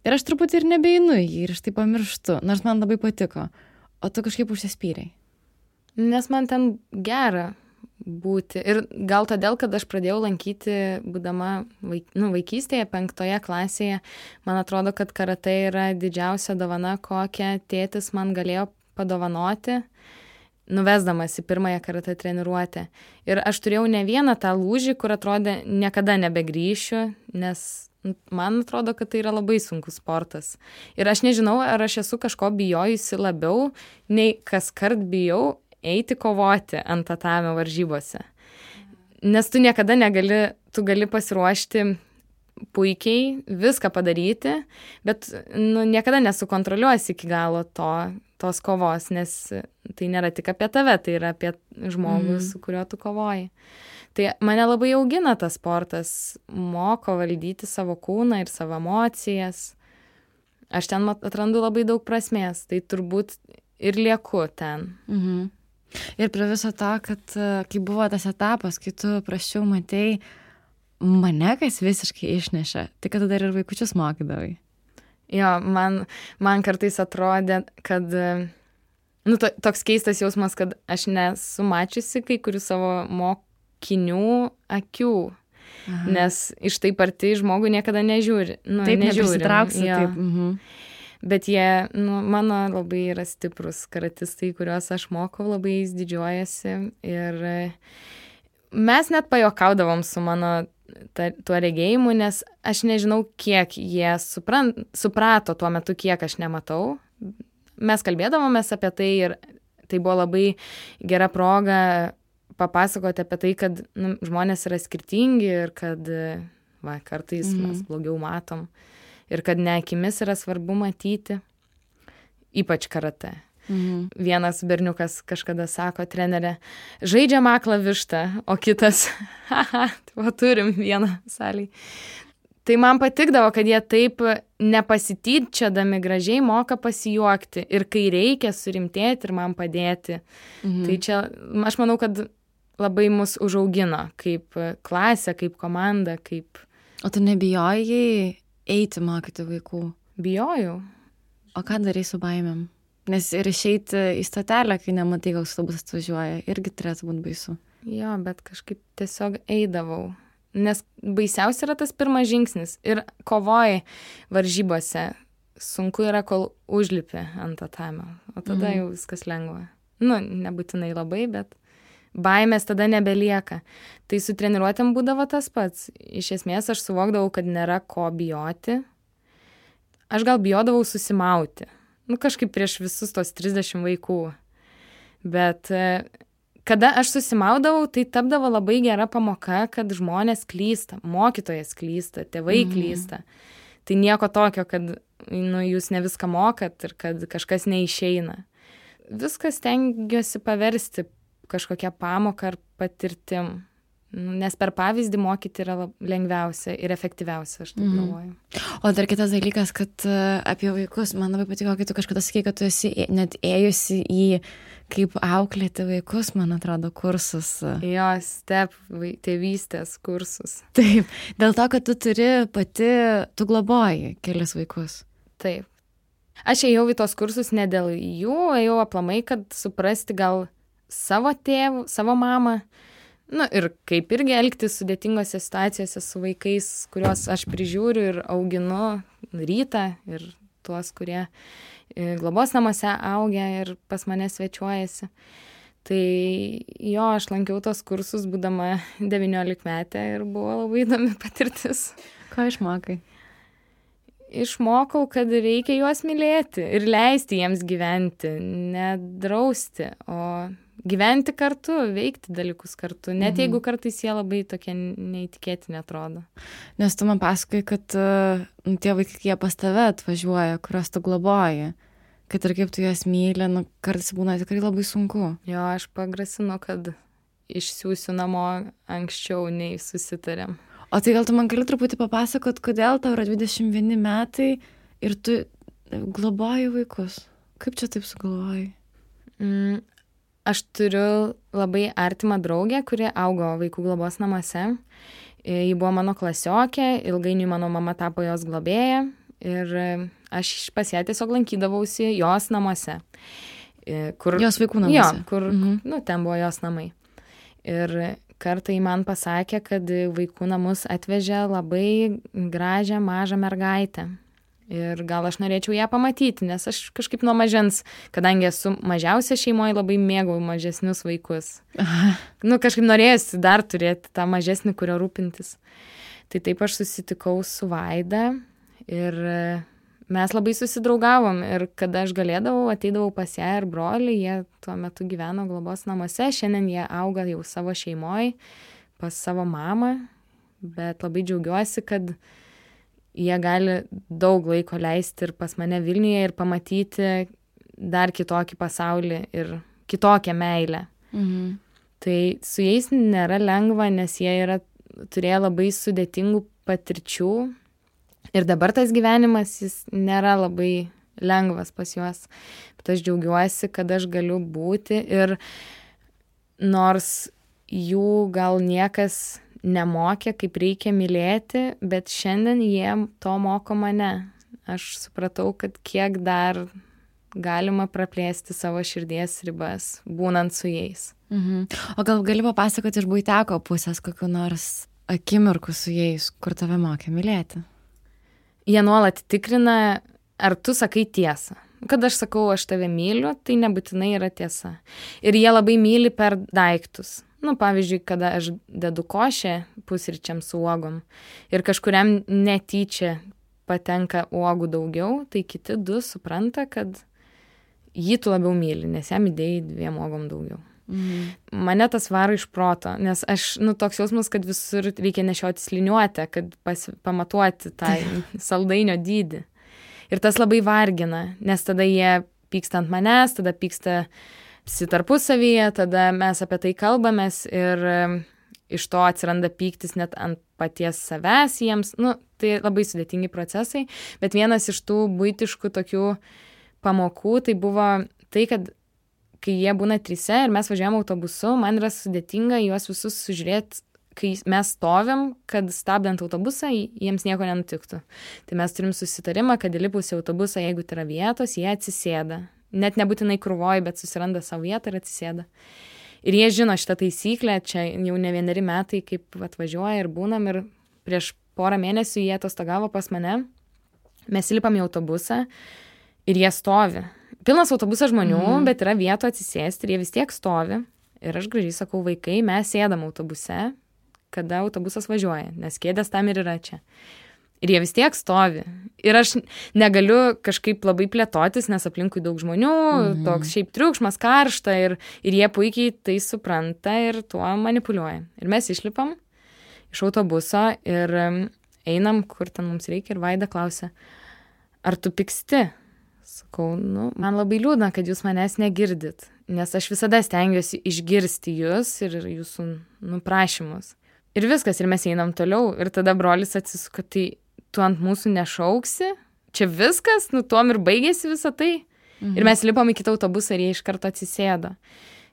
ir aš truputį ir nebeinu jį ir aš tai pamirštu, nors man labai patiko. O tu kažkaip užsispyrei. Nes man ten gera būti. Ir gal todėl, kad aš pradėjau lankyti, būdama vaikystėje, 5 klasėje, man atrodo, kad karatė yra didžiausia dovana, kokią tėtis man galėjo padovanoti, nuvesdamas į pirmąją karatė treniruotę. Ir aš turėjau ne vieną tą lūžį, kur atrodė niekada nebegrįšiu, nes man atrodo, kad tai yra labai sunkus sportas. Ir aš nežinau, ar aš esu kažko bijojusi labiau, nei kaskart bijau eiti kovoti ant tatamio varžybose. Nes tu niekada tu gali pasiruošti puikiai, viską padaryti, bet niekada nesukontroliuosi iki galo tos kovos, nes tai nėra tik apie tave, tai yra apie žmogų, su kuriuo tu kovoji. Tai mane labai augina tas sportas, moko valdyti savo kūną ir savo emocijas. Aš ten atrandu labai daug prasmės, tai turbūt ir lieku ten. Ir prie viso to, kad kai buvo tas etapas, kai tu prasčiau matei, mane kas visiškai išnešė, tai kad tu dar ir vaikučius mokydavai. Jo, man kartais atrodė, kad toks keistas jausmas, kad aš nesu mačiusi kai kurių savo mokinių akių, nes iš taip arti žmogų niekada nežiūri. Taip, neprisitrauksi. Taip. Bet jie, mano labai yra stiprus karatistai, kuriuos aš mokau, labai jais didžiuojasi. Ir mes net pajokaudavom su mano tuo regėjimu, nes aš nežinau, kiek jie suprato tuo metu, kiek aš nematau. Mes kalbėdavomės apie tai ir tai buvo labai gera proga papasakoti apie tai, kad žmonės yra skirtingi ir kad kartais mes blogiau matom. Ir kad ne akimis yra svarbu matyti, ypač karatė. Vienas berniukas kažkada sako, trenerė, žaidžiam aklą vištą, o kitas, turim vieną salėj. Tai man patikdavo, kad jie taip nepasityčiodami gražiai moka pasijuokti ir kai reikia surimtėti ir man padėti. Tai čia, aš manau, kad labai mus užaugino kaip klasė, kaip komanda, kaip... O tu nebijojai eiti mokyti vaikų? Bijojau. O ką darai su baimėm? Nes ir išeiti į stotelę, kai nematai, koks autobusas atvažiuoja, irgi turėtų būti baisu. Jo, bet kažkaip tiesiog eidavau. Nes baisiausia yra tas pirmas žingsnis. Ir kovoji varžybose. Sunku yra, kol užlipi ant tatamio. O tada jau viskas lengva. Nebūtinai labai, bet baimės tada nebelieka. Tai su treniruotėm būdavo tas pats. Iš esmės aš suvokdavau, kad nėra ko bijoti. Aš gal bijodavau susimauti. Kažkaip prieš visus tos 30 vaikų. Bet kada aš susimaudavau, tai tapdavo labai gera pamoka, kad žmonės klysta, mokytojas klysta, tėvai klysta. Tai nieko tokio, kad jūs ne viską mokat ir kad kažkas neišeina. Viskas stengiuosi paversti kažkokią pamoką ar patirtim. Nes per pavyzdį mokyti yra lengviausia ir efektyviausia, aš taip galvoju. O dar kitas dalykas, kad apie vaikus, man labai patiko, kai tu kažkada sakei, kad tu esi net ėjusi į kaip auklėti vaikus, man atrodo, kursus. Jo, tėvystės kursus. Taip, dėl to, kad tu turi tu globoji kelis vaikus. Taip. Aš ėjau į tos kursus ne dėl jų, ėjau aplamai, kad suprasti gal savo tėvų, savo mamą. Ir kaip irgi elgtis sudėtingose situacijose su vaikais, kuriuos aš prižiūriu ir auginu rytą ir tuos, kurie globos namuose augia ir pas mane svečiuojasi. Tai jo, aš lankiau tos kursus, būdama 19-metė ir buvo labai įdomi patirtis. Ką išmokai? Išmokau, kad reikia juos mylėti ir leisti jiems gyventi, nedrausti, o gyventi kartu, veikti dalykus kartu, net jeigu kartais jie labai tokie neįtikėtini atrodo. Nes tu man pasakai, kad tie vaikai, jie pas tave atvažiuoja, kuriuos tu globoji, kad ir kaip tu juos myli, kartais būna tikrai labai sunku. Jo, aš pagrasinu, kad išsiųsiu namo anksčiau nei susitarėm. O tai gal tu man gali truputį papasakot, kodėl tau yra 21 metai ir tu globoji vaikus? Kaip čia taip sugalvojai? Aš turiu labai artimą draugę, kuri augo vaikų globos namuose. Ji buvo mano klasiokė, ilgainiui mano mama tapo jos globėja ir aš pas ją tiesiog lankydavausi jos namuose. Jos vaikų namuose? Jo, kur, ten buvo jos namai. Ir kartą ji man pasakė, kad vaikų namus atvežė labai gražią mažą mergaitę. Ir gal aš norėčiau ją pamatyti, nes aš kažkaip nuo mažens, kadangi esu mažiausia šeimoje, labai mėgau mažesnius vaikus. Kažkaip norėjusi dar turėti tą mažesnį, kurio rūpintis. Tai taip aš susitikau su Vaida ir mes labai susidraugavom. Ir kada aš galėdavau, ateidavau pas ją ir brolį, jie tuo metu gyveno globos namuose, šiandien jie auga jau savo šeimoje, pas savo mamą, bet labai džiaugiuosi, kad jie gali daug laiko leisti ir pas mane Vilniuje ir pamatyti dar kitokį pasaulį ir kitokią meilę. Tai su jais nėra lengva, nes jie turėjo labai sudėtingų patirčių ir dabar tas gyvenimas jis nėra labai lengvas pas juos. Bet aš džiaugiuosi, kad aš galiu būti ir nors jų gal niekas nemokė, kaip reikia mylėti, bet šiandien jie to moko mane. Aš supratau, kad kiek dar galima praplėsti savo širdies ribas, būnant su jais. O gal gali papasakoti iš buiteko pusės kokiu nors akimirku su jais, kur tave mokė mylėti? Jie nuolat tikrina, ar tu sakai tiesą. Kad aš sakau, aš tave myliu, tai nebūtinai yra tiesa. Ir jie labai myli per daiktus. Pavyzdžiui, kada aš dedu košę pusryčiam su uogom ir kažkuriam netyčia patenka uogų daugiau, tai kiti du supranta, kad jį tu labiau myli, nes jam įdėjai 2 uogom daugiau. Mane tas varo iš proto, nes aš, toks jausmas, kad visur reikia nešioti liniuotę, kad pamatuoti tą saldainio dydį. Ir tas labai vargina, nes tada jie pyksta ant manęs, tada pyksta tarpusavyje, tada mes apie tai kalbamės ir iš to atsiranda pyktis net ant paties savęs jiems. Tai labai sudėtingi procesai, bet vienas iš tų buitiškų tokių pamokų tai buvo tai, kad kai jie būna 3 ir mes važiuojam autobusu, man yra sudėtinga juos visus sužiūrėti, kai mes stovim, kad stabdant autobusą jiems nieko nenutiktų. Tai mes turim susitarimą, kad įlipus į autobusą, jeigu tai yra vietos, jie atsisėda. Net nebūtinai krūvoj, bet susiranda savo vietą ir atsisėda. Ir jie žino šitą taisyklę, čia jau ne 1 metai, kaip atvažiuoja ir būnam, ir prieš porą mėnesių jie atostogavo pas mane, mes įlipam į autobusą ir jie stovi. Pilnas autobusas žmonių, bet yra vietų atsisėsti ir jie vis tiek stovi. Ir aš gražiai sakau, vaikai, mes sėdam autobuse, kada autobusas važiuoja, nes kėdės tam ir yra čia. Ir jie vis tiek stovi. Ir aš negaliu kažkaip labai plėtotis, nes aplinkui daug žmonių, toks šiaip triukšmas, karšta ir jie puikiai tai supranta ir tuo manipuliuoja. Ir mes išlipam iš autobuso ir einam, kur ten mums reikia, ir Vaida klausia, ar tu pyksti? Sakau, man labai liūdna, kad jūs manęs negirdit. nes aš visada stengiuosi išgirsti jūs ir jūsų prašymus. Ir viskas, ir mes einam toliau, ir tada brolis atsisuka, tai tu ant mūsų nešauksi, čia viskas, tuom ir baigėsi visą tai. Ir mes lipom į kitą autobusą ir jie iš karto atsisėdo.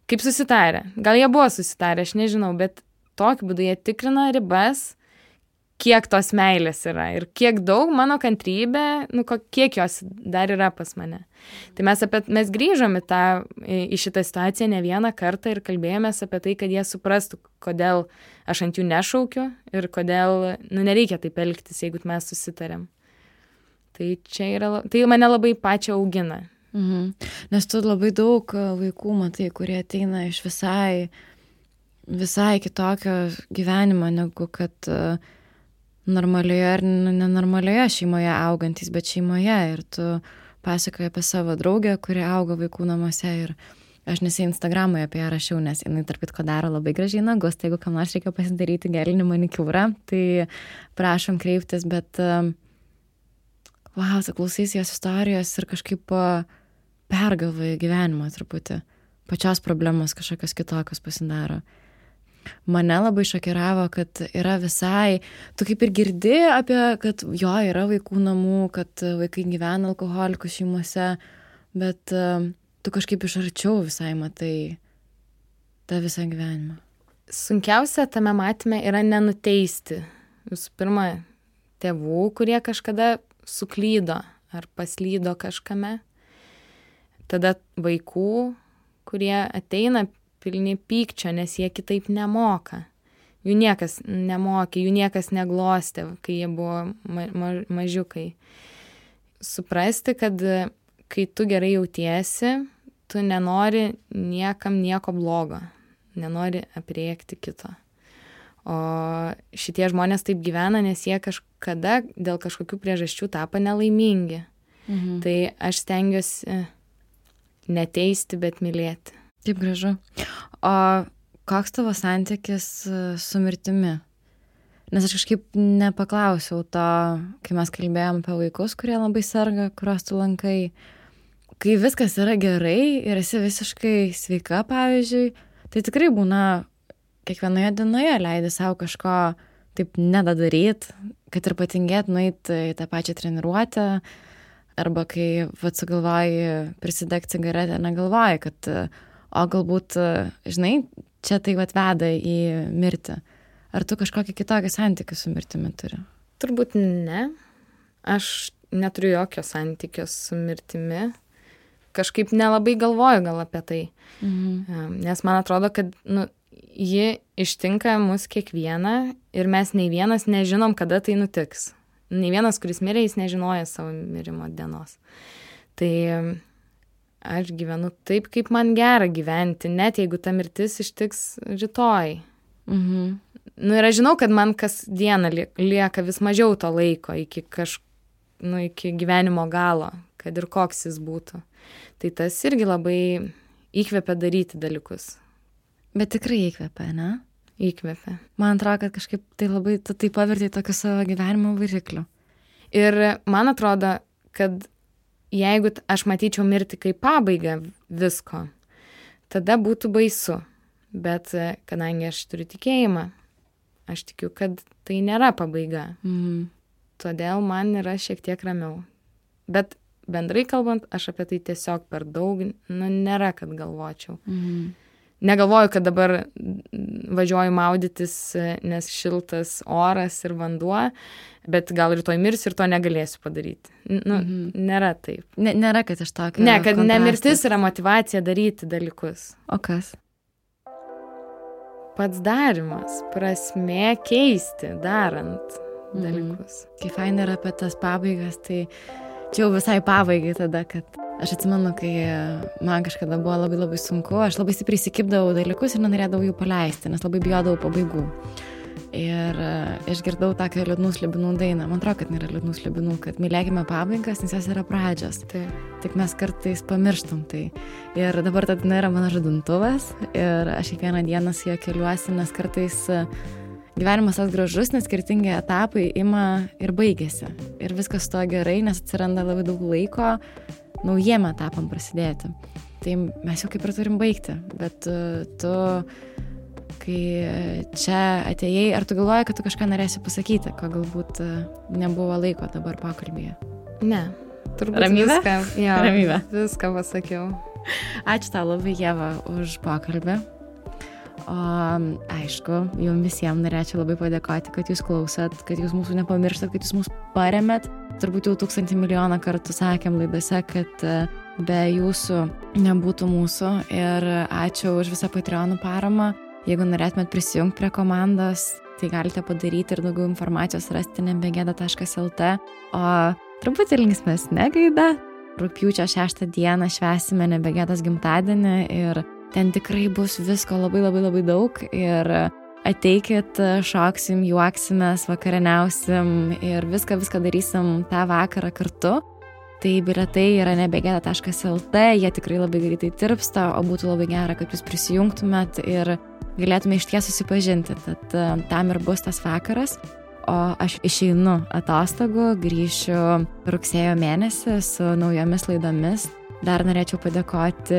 Kaip susitarė? Gal jie buvo susitarę, aš nežinau, bet tokiu būdu jie tikrina ribas, kiek tos meilės yra ir kiek daug mano kantrybė, kiek jos dar yra pas mane. Tai mes grįžom į šitą situaciją ne vieną kartą ir kalbėjomės apie tai, kad jie suprastų, kodėl aš ant jų nešaukiu ir kodėl nereikia taip elgtis, jeigu mes susitarėm. Tai mane labai pačią augina. Nes tu labai daug vaikų matai, kurie ateina iš visai kitokio gyvenimo, negu kad normalioje ar nenormalioje šeimoje augantys, bet šeimoje. Ir tu pasakoji apie savo draugę, kuri auga vaikų namuose. Ir aš nesai Instagram'oje apie ją rašiau, nes jinai tarp kitko daro labai gražiai nagus. Tai jeigu kam nors reikia pasidaryti gelinį manikiūrą, tai prašom kreiptis. Bet tu klausys jos istorijos ir kažkaip pergalvoji gyvenimą truputį. Pačios problemos kažkokios kitokios pasidaro. Mane labai šokiravo, kad yra visai, tu kaip ir girdi apie, kad yra vaikų namų, kad vaikai gyvena alkoholikų šeimose, bet tu kažkaip iš arčiau visai matai tą visą gyvenimą. Sunkiausia tame matyme yra nenuteisti. Visų pirma, tėvų, kurie kažkada suklydo ar paslydo kažkame. Tada vaikų, kurie ateina pilni pykčio, nes jie kitaip nemoka. Jų niekas nemokė, jų niekas neglostė, kai jie buvo mažiukai. Suprasti, kad kai tu gerai jautiesi, tu nenori niekam nieko blogo, nenori aprėkti kito. O šitie žmonės taip gyvena, nes jie kažkada dėl kažkokių priežasčių tapo nelaimingi. Tai aš stengiuosi neteisti, bet mylėti. Taip gražu. O koks tavo santykis su mirtimi? Nes aš kažkaip nepaklausiau to, kai mes kalbėjom apie vaikus, kurie labai serga, kuriuos tu lankai. Kai viskas yra gerai ir esi visiškai sveika, pavyzdžiui, tai tikrai būna kiekvienoje dienoje leidi savo kažko taip nedaryt, kad ir patingėt nueit į tą pačią treniruotę, arba kai sugalvoji prisidegti cigaretę, negalvoji, kad o galbūt, žinai, čia tai veda į mirtį. Ar tu kažkokį kitokį santykį su mirtimi turi? Turbūt ne. Aš neturiu jokio santykio su mirtimi. Kažkaip nelabai galvoju gal apie tai. Nes man atrodo, kad ji ištinka mus kiekvieną ir mes nei vienas nežinom, kada tai nutiks. Nei vienas, kuris mirė, jis nežinoja savo mirimo dienos. Tai aš gyvenu taip, kaip man gera gyventi, net jeigu ta mirtis ištiks rytoj. Ir aš žinau, kad man kasdieną lieka vis mažiau to laiko iki gyvenimo galo, kad ir koks jis būtų. Tai tas irgi labai įkvepia daryti dalykus. Bet tikrai įkvepia, ne? Įkvepia. Man atrodo, kad kažkaip tai labai tai pavertė tokiu savo gyvenimo varikliu. Ir man atrodo, kad jeigu aš matyčiau mirtį kaip pabaigą visko, tada būtų baisu. Bet kadangi aš turiu tikėjimą, aš tikiu, kad tai nėra pabaiga. Todėl man yra šiek tiek ramiau. Bet bendrai kalbant, aš apie tai tiesiog per daug, nėra, kad galvočiau. Negalvoju, kad dabar važiuoju maudytis, nes šiltas oras ir vanduo, bet gal rytoj mirsiu ir to negalėsiu padaryti. Nėra taip. Nėra, kad iš tokio Ne, kad nemirtis yra motyvacija daryti dalykus. O kas? Pats darimas, prasmė keisti, darant dalykus. Kai fain yra apie tas pabaigas, tai čia jau visai pabaigai tada, kad aš atsimenu, kai man kažkada buvo labai labai sunku, aš labai stipriai įsikibdavau dalykus ir nenorėdavau jų paleisti, nes labai bijodavau pabaigų. Ir išgirdau tokią liūdnų slibinų dainą. Man atrodo, kad nėra liūdnų slibinų, kad mylėkime pabaigas, nes jos yra pradžios. Tik mes kartais pamirštam tai. Ir dabar ta daina yra mano žadintuvas ir aš kiekvieną dieną su juo keliuosi, nes kartais gyvenimas toks gražus, nes skirtingi etapai ima ir baigėsi. Ir viskas to gerai, nes atsiranda labai daug laiko naujiem etapam prasidėti. tai mes jau kaip ir turim baigti, bet tu, kai čia atėjai, ar tu galvoji, kad tu kažką norėsi pasakyti, ko galbūt nebuvo laiko dabar pokalbyje? Ne, turbūt Ramybė? Ramybė. Viską pasakiau. Ačiū tau labai, Ieva, už pokalbį. O aišku, jums visiems norėčiau labai padėkoti, kad jūs klausot, kad jūs mūsų nepamirštat, kad jūs mūsų paremėt. Turbūt jau 1000 milijoną kartų sakėm laidose, kad be jūsų nebūtų mūsų. Ir ačiū už visą Patreonų paramą. Jeigu norėtumėt prisijungti prie komandos, tai galite padaryti ir daugiau informacijos rasti nebegėda.lt. O truputį linksmesnė gaida. Rugpjūčio 6 dieną švęsime Nebegėdos gimtadienį ir ten tikrai bus visko labai daug ir ateikit, šoksim, juoksimės, vakarieniausim ir viską darysim tą vakarą kartu. Tai bilietai yra nebegėda.lt, jie tikrai labai greitai tirpsta, o būtų labai gera, kad jūs prisijungtumėt ir galėtume išties susipažinti. Tad tam ir bus tas vakaras. O aš išeinu atostogų, grįšiu rugsėjo mėnesį su naujomis laidomis. Dar norėčiau padėkoti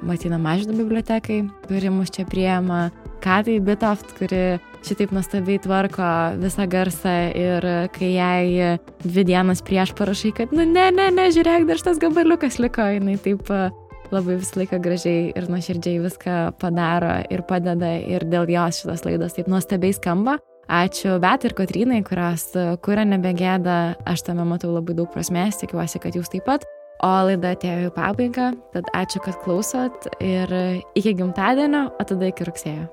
Martyno Mažvydo bibliotekai, kuri mus čia priema, Katai Bitoft, kuri šitaip nuostabiai tvarko visą garsą ir kai jai 2 dienas prieš parašai, kad ne, žiūrėk, dar šitas gabaliukas liko, jinai taip labai visą laiką gražiai ir nuoširdžiai viską padaro ir padeda ir dėl jos šitas laidos taip nuostabiai skamba. Ačiū Betai ir Kotrynai, kurios kuria Nebegėda, aš tame matau labai daug prasmės, tikiuosi, kad jūs taip pat. O laida atėjo į pabaigą, tad ačiū, kad klausot ir iki gimtadienio, o tada iki rugsėjo.